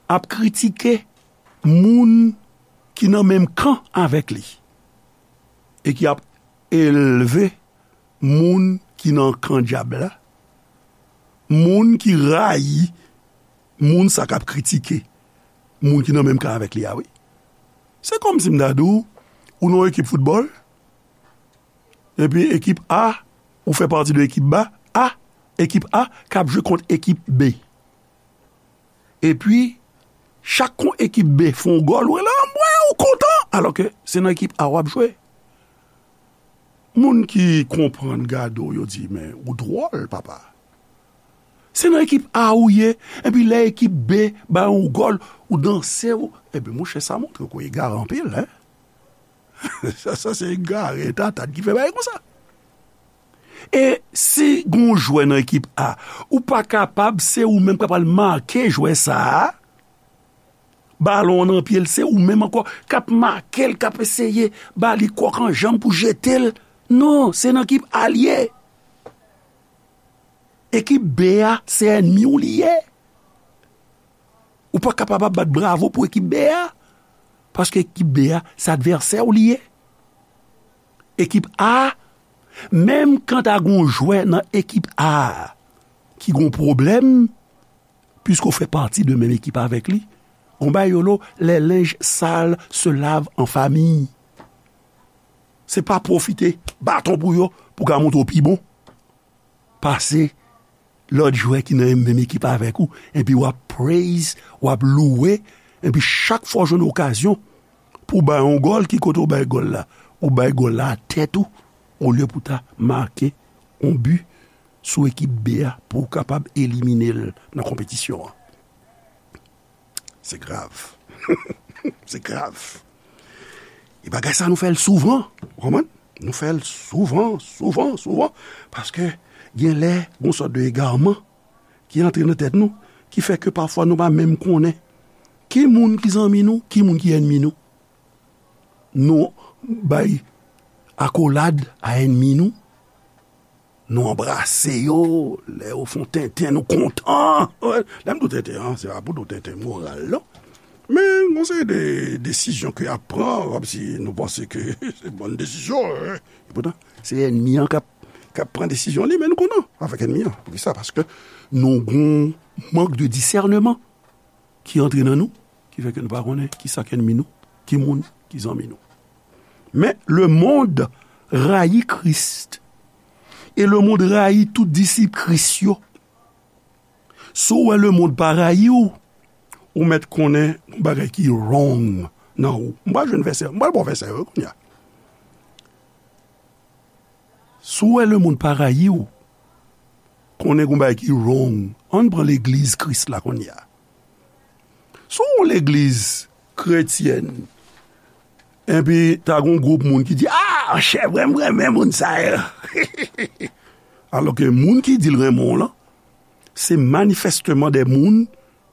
ap kritike moun ki nan menm kan avèk li e ki ap elve moun ki nan kan dyab la, moun ki rayi moun sa k ap kritike moun ki nan menm kan avèk li a, wi. Se kòmsi m ta di w, ou nan yon ekip foutbòl, epi ekip A, ou fè pati de ekip ba, A, ekip A k ap jwe kont ekip B. Epi, chak kon ekip B fè yon gòl, ou rele, "Anmwey, ou kontan!" Alòske se nan ekip A w ap jwe. Moun ki konprann gade w, yo di, "Men, ou dwòl, papa." Se nan ekip A ou ye, epi lè ekip B bay yon gòl, ou danse, ou, epi monchè, sa montre ke w egare anpil, en. Sa, sa se egare, tatad ki fè bagay konsa. E si gon jwè nan ekip A, ou pa kapab, se ou menm k ap al make jwè sa a, balon an nan pye l, se ou menm ankò k ap make l, k ap eseye ba li kòk an janm pou jete l. Non, se nan ekip A l ye. Ekip B a, se ènmi w li ye. Ou pa kapab ap bat bravo pou ekip B a, paske ekip B a, se advèsè w li ye. Ekip A, menm kan ta gon jwè nan ekip A ki gon pwoblèm, piske w fè pati de menm ekip avèk li, gon bagay yo lo, les linges sales se lavent en famille. Se pa pwofite baton pou yo, pou ka montre w pi bon pase lòt jwè ki nan menm ekip avèk ou, epi w ap praise, w ap louwe, epi chak fwa w jwenn okazyon pou w bay yon gòl, ki kote w bay gòl la? Ou bay gòl la a tèt ou, olye pou w ta make yon bi sou ekip B a pou w kapab elimine l nan konpetisyon an. Se grav. Se grav. E bagay sa nou fè l souvan, ou konprann? Nou fè l souvan, souvan, souvan, paske gen lè gon sòt de egarman ki antre nan tèt nou, ki fè ke pafwa nou pa menm konnen ki moun ki zanmi nou, ki moun ki ènmi nou. Nou bay akolad a ènmi nou, nou anbrase yo, lè yo fè yon tenten, nou kontan. Lè m di w tenten an, se pa pou di w tenten moral, non. Men, gon seri de desizyon ke y ap pran, kòmsi nou panse ke se bòn desizyon, wi. Epoutan, se ènmi an k ap, k ap pran desizyon li, men nou kontan avèk ènmi an. Poukisa? Paske nou gon mank de disèneman ki antre nan nou, ki fè ke nou pa konnen ki sa k ènmi nou, ki moun ki zanmi nou. Men, le monde rayi Kris, e le monde rayi tout disip Kris yo. Si w wè le monde pa rayi w, ou mèt konnen yon bagay ki wrong nan ou. M pral jwenn vèsè, m pral ba w vèsè yo kounye a. Si w wè le monde pa rayi w, konnen gon bagay ki wrong. Ann pran legliz Kris la kounye a. Si w yon legliz kretyèn, epi ta gon gwoup moun ki di, "Ah, chè, vrèman, m renmen moun sa yo." Alòske moun ki di l renmen w lan, se manifèsteman de moun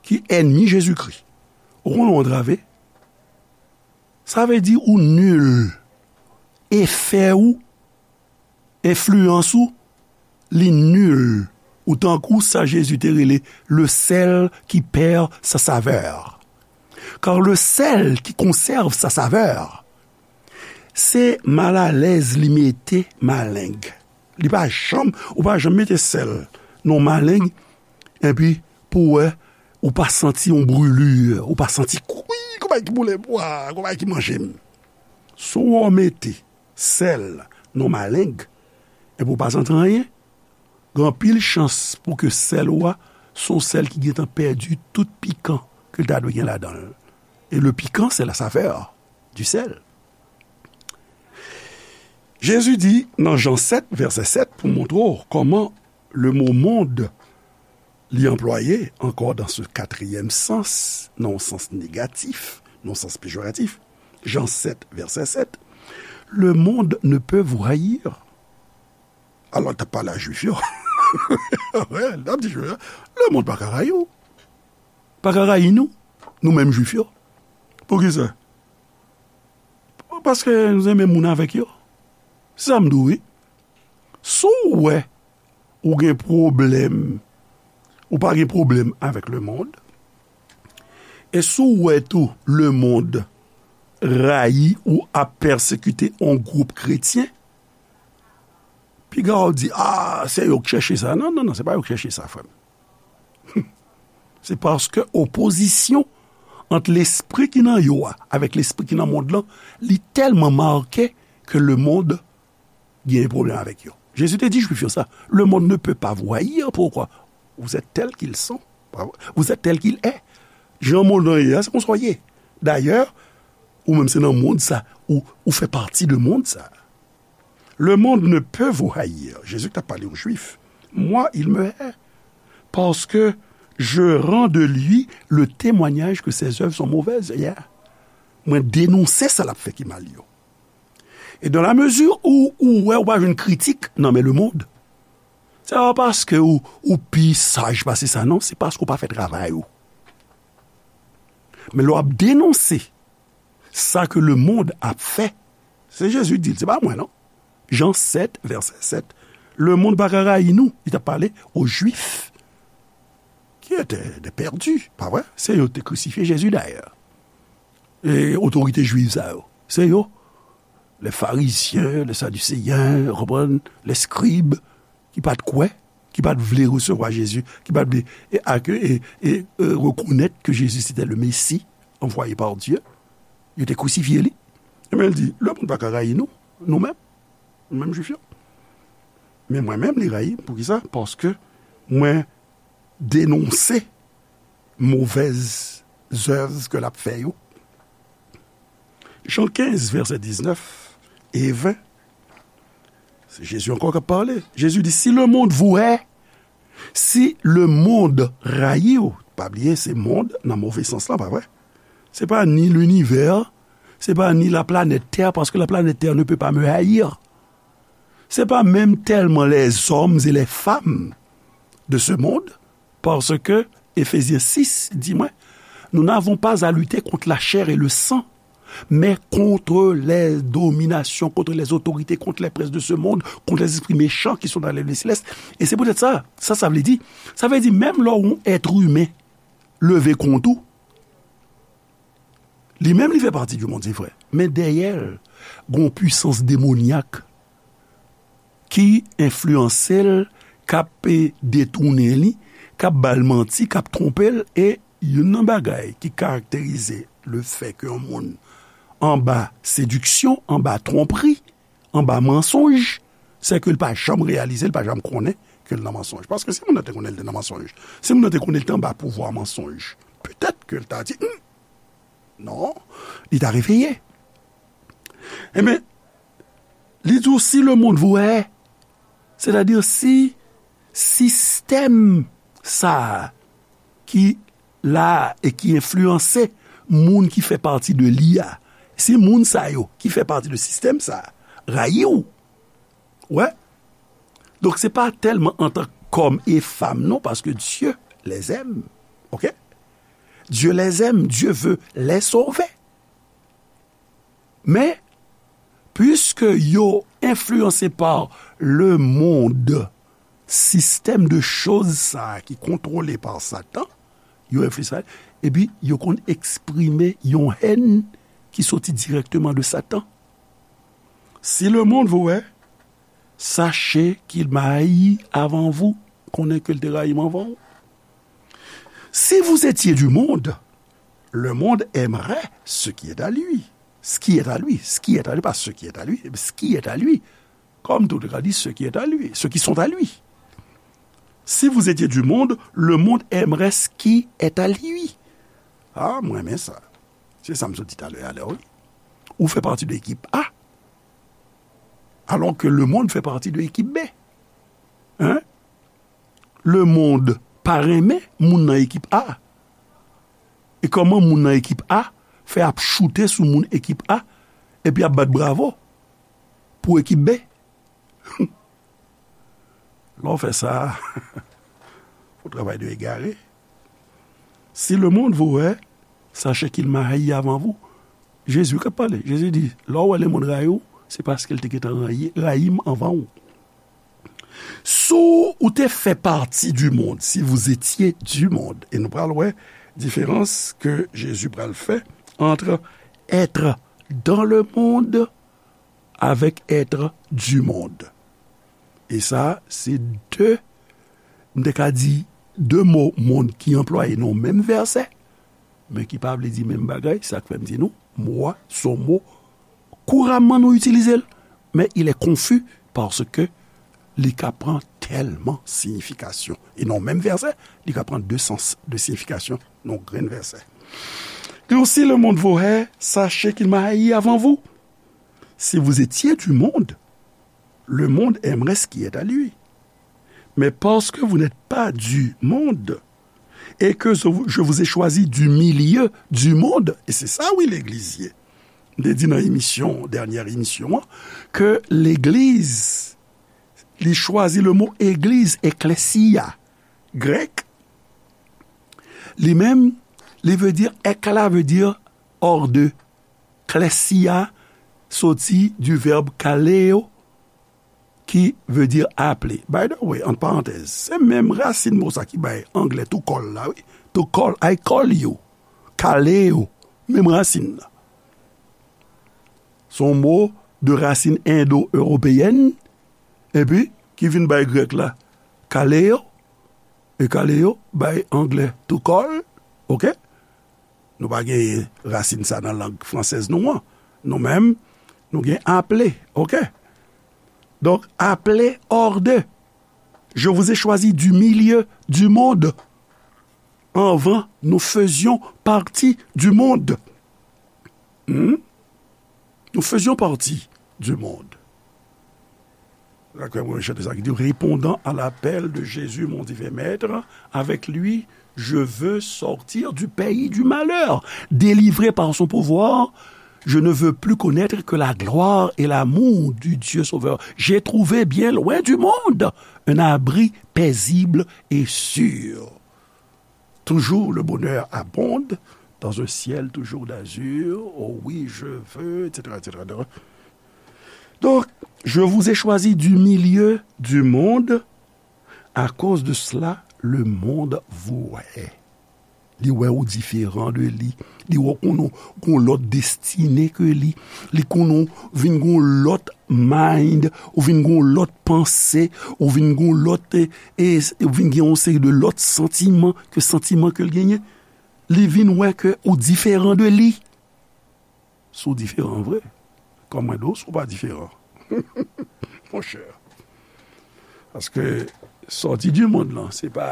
ki ènmi Jezikri. Ou konnen w antrave? Sa vle di ou nil. Efè ou, enfliyans ou, li nil. Ou tankou sa Jezi te rele le sel qui perd sa saveur. Car le sel qui conserve sa saveur, se malalèz li mete maleng. Li pa janm, ou pa janm mete sèl nan maleng, epi pou wè, ou pa santi yon brûlure, ou pa santi, wi, gon bagay ki boule m, wa, gon bagay ki manje m. Si w mete sèl nan maleng, epi ou pa santi anyen, gen anpil chans pou ke sèl ou a, se yon sèl ki gentan pèdi tout pikan ke l ta dwe gen ladan l. Et le piquant, c'est la saveur du sel. Jezi di nan Jan sèt, vèsè sèt, pou montre w kòman le mo monde li anplwaye ankò dans ce quatrième sens, nan yon sans negatif, nan yon sans pejoratif. Jan sèt, vèsè sèt, le monde ne peut vous haïr. Alò, l t ap pale a Jwif yo. Wi, l t ap di Jwif yo, le monde pa ka rayi w. Pa ka rayi nou, nou menm Jwif yo. Poukisa? Paske nou se menm moun avèk yo. Se sa m di w, wi. Si w wè ou gen pwoblèm, ou pa gen pwoblèm avèk le monde, e si w wè tou le monde rayi ou ap pèsekite yon gwoup kretyen, piga w di, "Ah, se yo k chèche sa." Non, non, non, se pa yo k chèche sa, frè m. Se paske opozisyon ant lespri ki nan yo a avèk lespri ki nan mond lan, li tèlman make ke le monde gen pwoblèm avèk yo. Jezi te di Jwif yo sa, le monde ne peut pas vous haïr, pourquoi? Vous êtes tel qu'il sont. Vous êtes tel qu'il est. Jan mond lan ye a, se konsa w ye. Dayè, ou menm se nan mond sa, ou, ou fè pati de mond sa. Le monde ne peut vous haïr. Jezi ki t ap pale aux Juifs. Moi, il me hait. Parce que je rends de lui le témoignage que ses œuvres sont mauvaises. Yeah. Mwen denonse sa l ap fè ki mal yo. E dans la mesure où ou wè ou pa jwenn kritik nan men lemonn, se pa paske ou, ou pi saj pase sa, non, se paske ou pa fè travay ou. Men lè w ap denonse sa ke lemonn ap fè, se Jezi ki di l, se pa mwen, non. Jan sèt, vèsè sèt. Lemonn pa ka rayi nou. Li t ap pale o Jwif ki ete de pèdi, pa vre? Se yo ki te krisifye Jezi, dayè. E otorite jwiv sa yo, se yo, les Pharisiens, les Sadducéens, ou konprann, les scribes, ki pa t kwè, ki pa t vle resevwa Jezi, ki pa t vle e, ake, e, e, e, rekonèt ke Jezi se te le Mesi anvwaye pa Dye, yo te krisifye li. Ebyen, l di, lemonn pa ka rayi nou, nou menm, nou menm Jwif yo. Men mwen menm, li rayi m. Poukisa? Paske mwen denonse movèz zèv ke l ap fè yo. Jan kenz, vèsè diznèf e ven. Se Jezi ankò k ap pale. Jezi di, si lemonn vous hait, si lemonn rayi w, pa bliye, se monn nan move sans lan, pa vre? Se pa ni linivè, se pa ni la planèt Terre, parce que la planète Terre ne peut pas me haïr. Se pa menm tèlman les hommes et les femmes de ce monde, parce que Éphésiens six di mwen, nous n'avons pas à lutter contre la chair et le sang, mais contre les dominations, contre les autorités, contre les princes de ce monde, contre les esprits méchants qui sont dans les lieux célestes. E se poutèt sa, sa, sa vle di, sa vle di, menm lè yon èt imen leve kont ou, li menm li fè pati di monn, se vre. Men dèyè l, gon pwisans demonyak ki enfliyanse l, k ap, e, detounen li, k ap ba l manti, k ap twonpe l, e youn nan bagay ki karakterize lefètke yon moun anba sediksyon, anba twonpri, anba mansonj, se ke l pa janm reyalize, l pa janm konnen ke l nan mansonj. Paske si moun nan te konnen l te nan mansonj, si moun nan te konnen l te anba pouvwa mansonj, petèt ke l ta di, hmm, non, li ta reveye. Ebyen, li di w, si lemonn vous hait, sètadi si sistèm sa a ki la a e ki enfliyanse moun ki fè pati de li a, si moun sa yo ki fè pati de sistèm sa a rayi w, wè, donk se pa tèlman antan k òm e fanm, non, paske Dieu les aime, oke? Dieu les aime, Dieu veut les sauver. Men, puiske yo enfliyanse pa lemonn, sistèm de choz sa a ki kontwole pa Satan, yo enfliyanse, epi yo konn eksprime yon hèn ki soti dirèkteman de Satan. Si lemonn vous hait, sachez qu'il m'a haï avant vous. Konnen ke l te rayi m anvan w. Si vous étiez du monde, le monde aimerait ce qui est à lui. Ce qui est à lui, ce qui est à lui, pas ce qui est à lui, mais ce qui est à lui. Comme tout le monde dit, ce qui est à lui, ceux qui sont à lui. Si vous étiez du monde, le monde aimerait ce qui est à lui. Ah, mwen renmen sa. Se sa m sot di talè a la, wi. Ou fè pati de ekip A, alò ke lemonn fè pati de ekip B. Hein? Lemonn pa renmen moun nan ekip A. E kòman moun nan ekip A fè ap choute sou moun ekip A epi ap bat bravo pou ekip B? Lè w fè sa, w travay de egare. Si lemonn vous hait, sachez qu'il m'a haï avant vous. Jezi k ap pale. Jezi di, lè w wè lemonn rayi w, se paske l te gentan rayi, rayi m anvan w. Si w te fè pati du monde, si vous étiez du monde, e nou pral wè diferans ke Jezi pral fè entre être dans le monde avec être du monde. E sa, se de, m te ka di, de mo monn ki anplwaye nan yon menm vèsè, men ki pa vle di menm bagay. Sa k fè m di nou, mo a se yon mo kouramman nou itilize l, men il est confus paske li ka pran tèlman siyifikasyon. E nan yon menm vèsè, li ka pran de sans, de siyifikasyon nan yon grenn vèsè. Li di, si le monde vous hait, sachez qu'il m'a haï avant vous. Si vous étiez du monde, le monde aimerait ce qui est à lui. Mais parce que vous n'êtes pas du monde, et que je vous ai choisi du milieu du monde, e se sa, wi, legliz ye. m te di nan emisyon, dènyè emisyon an, ke legliz, li chwazi le mo egliz, ekklesia, grèk, li menm, li vle di, ek la vle di hors de. Klesia soti du verbe kaleo, ki vle di aple. By the way, ant parantèz, se menm rasin mo sa ki bay anglè to call la, wi. To call, I call you. Kaleo, menm rasin nan. Se yon mo de rasin endo-ewopeyèn, epi ki vin bay grèk la, kaleo, e kaleo bay anglè to call, oke? Nou pa gen rasin sa nan lang fransèz nou an. Nou menm, nou gen aple, oke? Donk, aple hors de. Je vous ai choisi du milieu du monde. Avant, nous faisions partie du monde. Hmm? Nous faisions partie du monde. Dakò, mwen chante sa ki di, répondant à l'appel de Jésus, mon divin maître, avec lui, je veux sortir du pays du malheur, délivré par son pouvoir, je ne veux plus connaître que la gloire et l'amour du Dieu Sauveur. J'ai trouvé bien loin du monde un abri paisible et sûr. Toujours le bonheur abonde dans un ciel toujours d'azur. Oh oui, je veux, et cetera, et cetera. Donc, je vous ai choisi du milieu du monde. À cause de cela, le monde vous hait. Li wè ou diferan de li. Li wè ou konn gon lòt destine ke li. Li konn ou vin gon lòt mind, ou vin gon lòt panse, ou vin gon lòt, e, e, ou vin gen yon seri de lòt santiman ke santiman ke l genyen. Li vin wè ke ou diferan de li. Si w diferan vre, kòman mwen di w si w pa diferan? Monchè. Paske sòti di mond lan, se pa,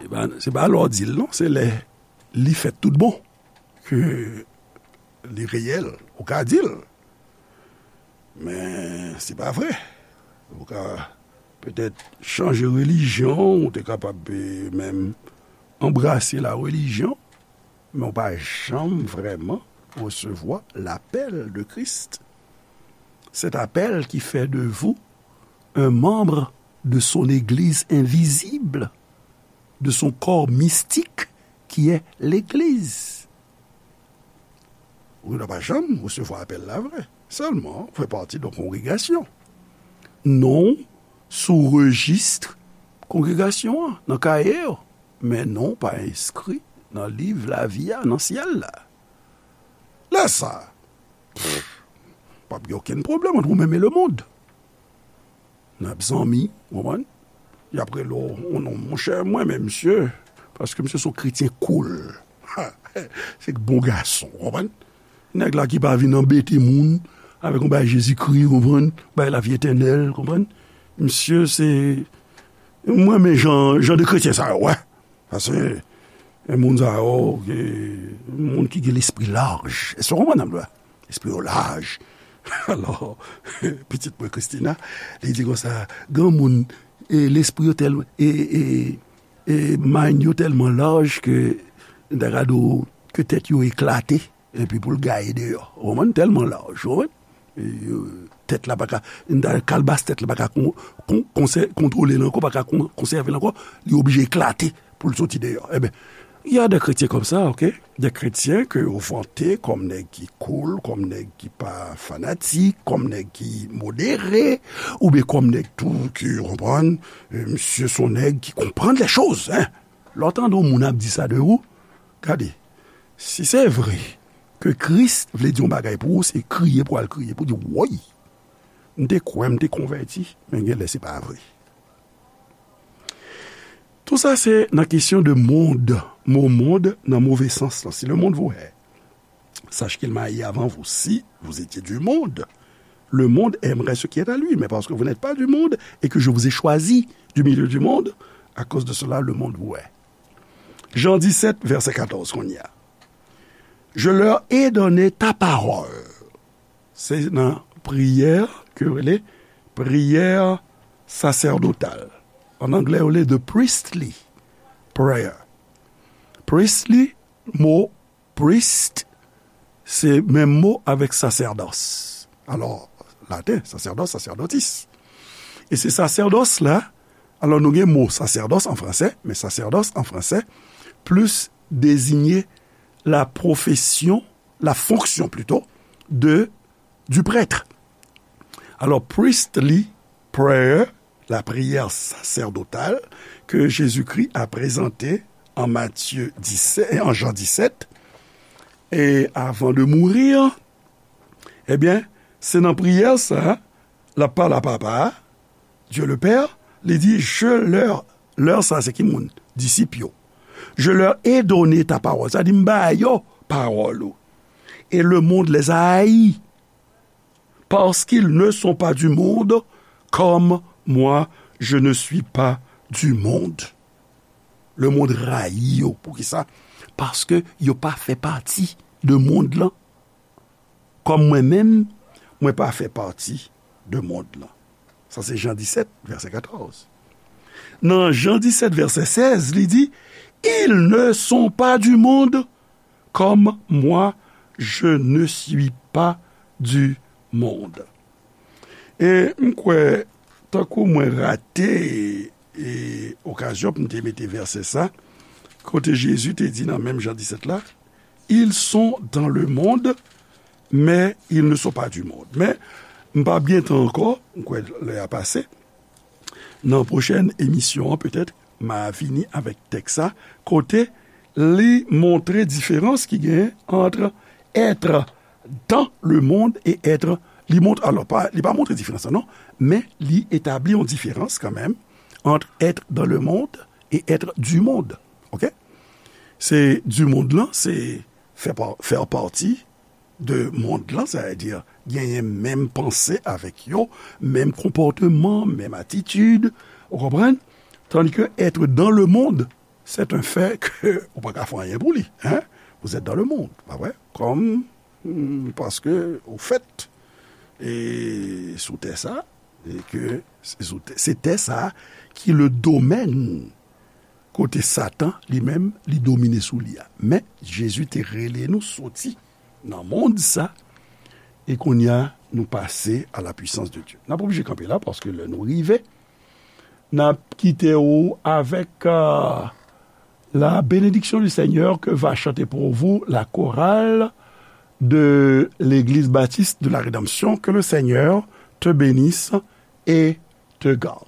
se pa, se pa lè w di l non, se lè li fèt tout bon ke li reyèl, ou ka di l. Men se pa vre. Ou ka petèt chanje relijyon, ou te kapab, e, menm anbrase la religion, men ou pa janm vrèman resevwa lapèl de Kris. Cet appel qui fait de vous un membre de son église invisible, de son corps mystique qui est l'église. Ou pa janm resevwa apèl la vre. Sèlman, ou fè pati de yon kongregasyon. Non w sou rejis kongregasyon an, nan kaye yo. Men non w pa enskri nan liv lavi a, nan syèl la. Lè sa, pff, p ap gen okenn pwoblèm ant ou menm e lemonn. N ap zanmi, w konprann? Y ap rele w yon non, monchè, mwen menm, misye, paske misye se yon kretyen cool. Se bon gason, w konprann? Nèg la ki pa vin anbete moun avèk yon bagay Jezikri, w konprann? Bagay lavi etènèl, w konprann? Misye se, mwen renmen jan, jan de kretyen sa yo, wè. Paske, e, moun sa yo, e, moun ki gen lespri laj. Èske w konprann sa m di w la? Lespri yo laj. Alò, pitit mwen Christina, li di konsa, granmoun, e, lespri yo tèl, e, e, e, mind yo tèlman laj ke, m ta ka di w, ke tèt yo eklate. Epi pou l gaye deyò. Ou konprann? Tèlman laj, ou konprann? E, tèt la pa ka, kalbas tèt la pa ka kon, kon, konsè, kontwole l ankò, pa ka kon, konsève l ankò, li oblije eklate pou l soti deyò. Ebyen, il y a des chrétiens comme ça, ok? Des chrétiens ke yo vante kòm nèg ki cool, kòm nèg ki pa fanatik, kòm nèg ki modere, oubyen kòm nèg tou ki, ou konprann, e, misye se yon nèg ki konprann les choses, hein? Lè w tande yon moun ap di sa de ou, gade, si se vre ke Kris vle di yon bagay pou ou, se kriye pou w al kriye, pou w di, woy, m te kwè, m te konvèti, men genlè se pa vre. Tout sa se nan kesyon de mond, mo mond nan move sans lan. Si le monde vous hait, sache qu'il m'a haï avant vous. Si vous étiez du monde, le monde aimerait ce qui est à lui. Mais parce que vous n'êtes pas du monde et que je vous ai choisi du milieu du monde, à cause de cela, le monde vous hait. Jan disèt, vèsè katòz, kounye a. Je leur ai donné ta parole. Se nan priyè ke yo rele priyè sasèdotal. An anglè, yo rele the priestly prayer. Priestly, mo priest, se menm mo avèk sasèdòs. Alò, laten, sacerdos, sacerdotis. E se sasèdòs la, alò nou gen mo sasèdòs an fransè, men sasèdòs an fransè plis deziye la profesyon, la fonksyon plito, de, du prêtre. Alors, priestly prayer, la prière sacerdotale que Jésus-Christ a présentée en Matthieu dix-sept, en Jean dix-sept, et avant de mourir, ebyen, se nan priyè sa, l ap pale a Papa a, Dieu le Père, li di, je leur, leur sa se ki moun? Disip yo. Je leur ai donné ta parole. Sa di, m ba yo pawòl ou. Et le monde les a haïs, parce qu'ils ne sont pas du monde, comme moi, je ne suis pas du monde. Le monde rayi yo. Poukisa? Paske yo pa fè pati de mond lan. Kòm mwen menm, mwen pa fè pati de mond lan. Sa se Jan disèt, vèsè katòz. Nan Jan disèt, vèsè sèz, li di, ils ne sont pas du monde, comme moi, je ne suis pas du monde. E m kwè, tankou mwen rate, e, okazyon pou m te mete vèsè sa, kote Jezi te di nan menm Jan disèt la, ils sont dans le monde, mais ils ne sont pas du monde. Men, m p ap gen tan ankò, m kwè lè a pase. Nan pwochèn emisyon an, petèt, m a vini avèk tèks sa, kote li montre diferans ki genyen ant être dans le monde et être, li mont-, alò, pa, li pa montre diferans lan, non, men li etabli yon diferans kanmenm ant être dans le monde et être du monde. Oke? Se du monde lan, se fè pa-, faire partie de mond lan, sètadi genyen menm panse avèk yo, menm konpòteman, menm atitid, ou konprann? Tandis que être dans le monde, c'est un fait que ou pa ka fè anyen pou li, hein? Vous êtes dans le monde, pa vre? Comme, hmm, parce que, au fait, e sou tè sa, e ke se sou tè, se tè sa ki le domaine kote Satan, li menm, li domine sou li a. Men, Jezi te rele nou soti nan mond sa, e kounye a, nou pase à la puissance de Dieu. N ap oblije kanpe la, paske lè nou rive, n ap kite ou avèk, euh, la bénédiction du Seigneur que va chanter pour vous la chorale de l'Église Baptiste de la Rédemption. Que le Seigneur te bénisse et te garde.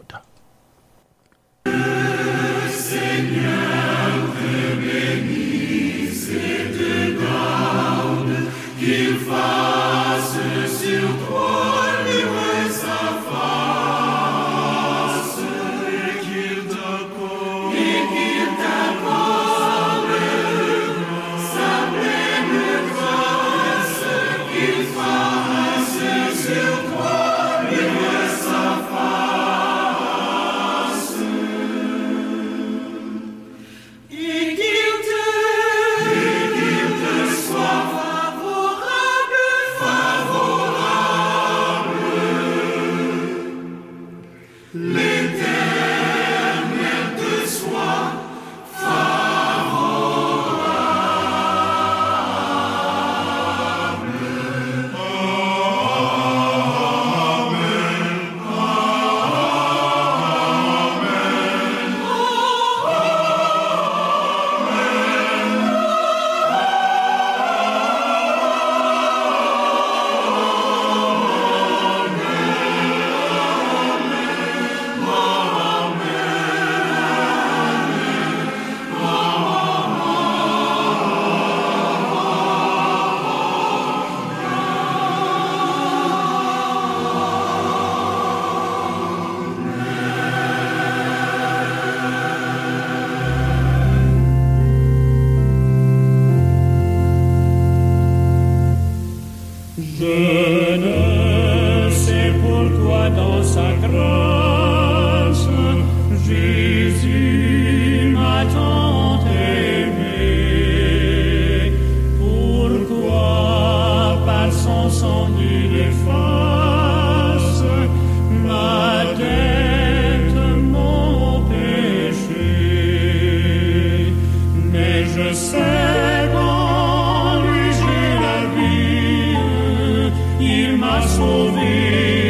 Je ne sais pourquoi dans sa grâce, j'ai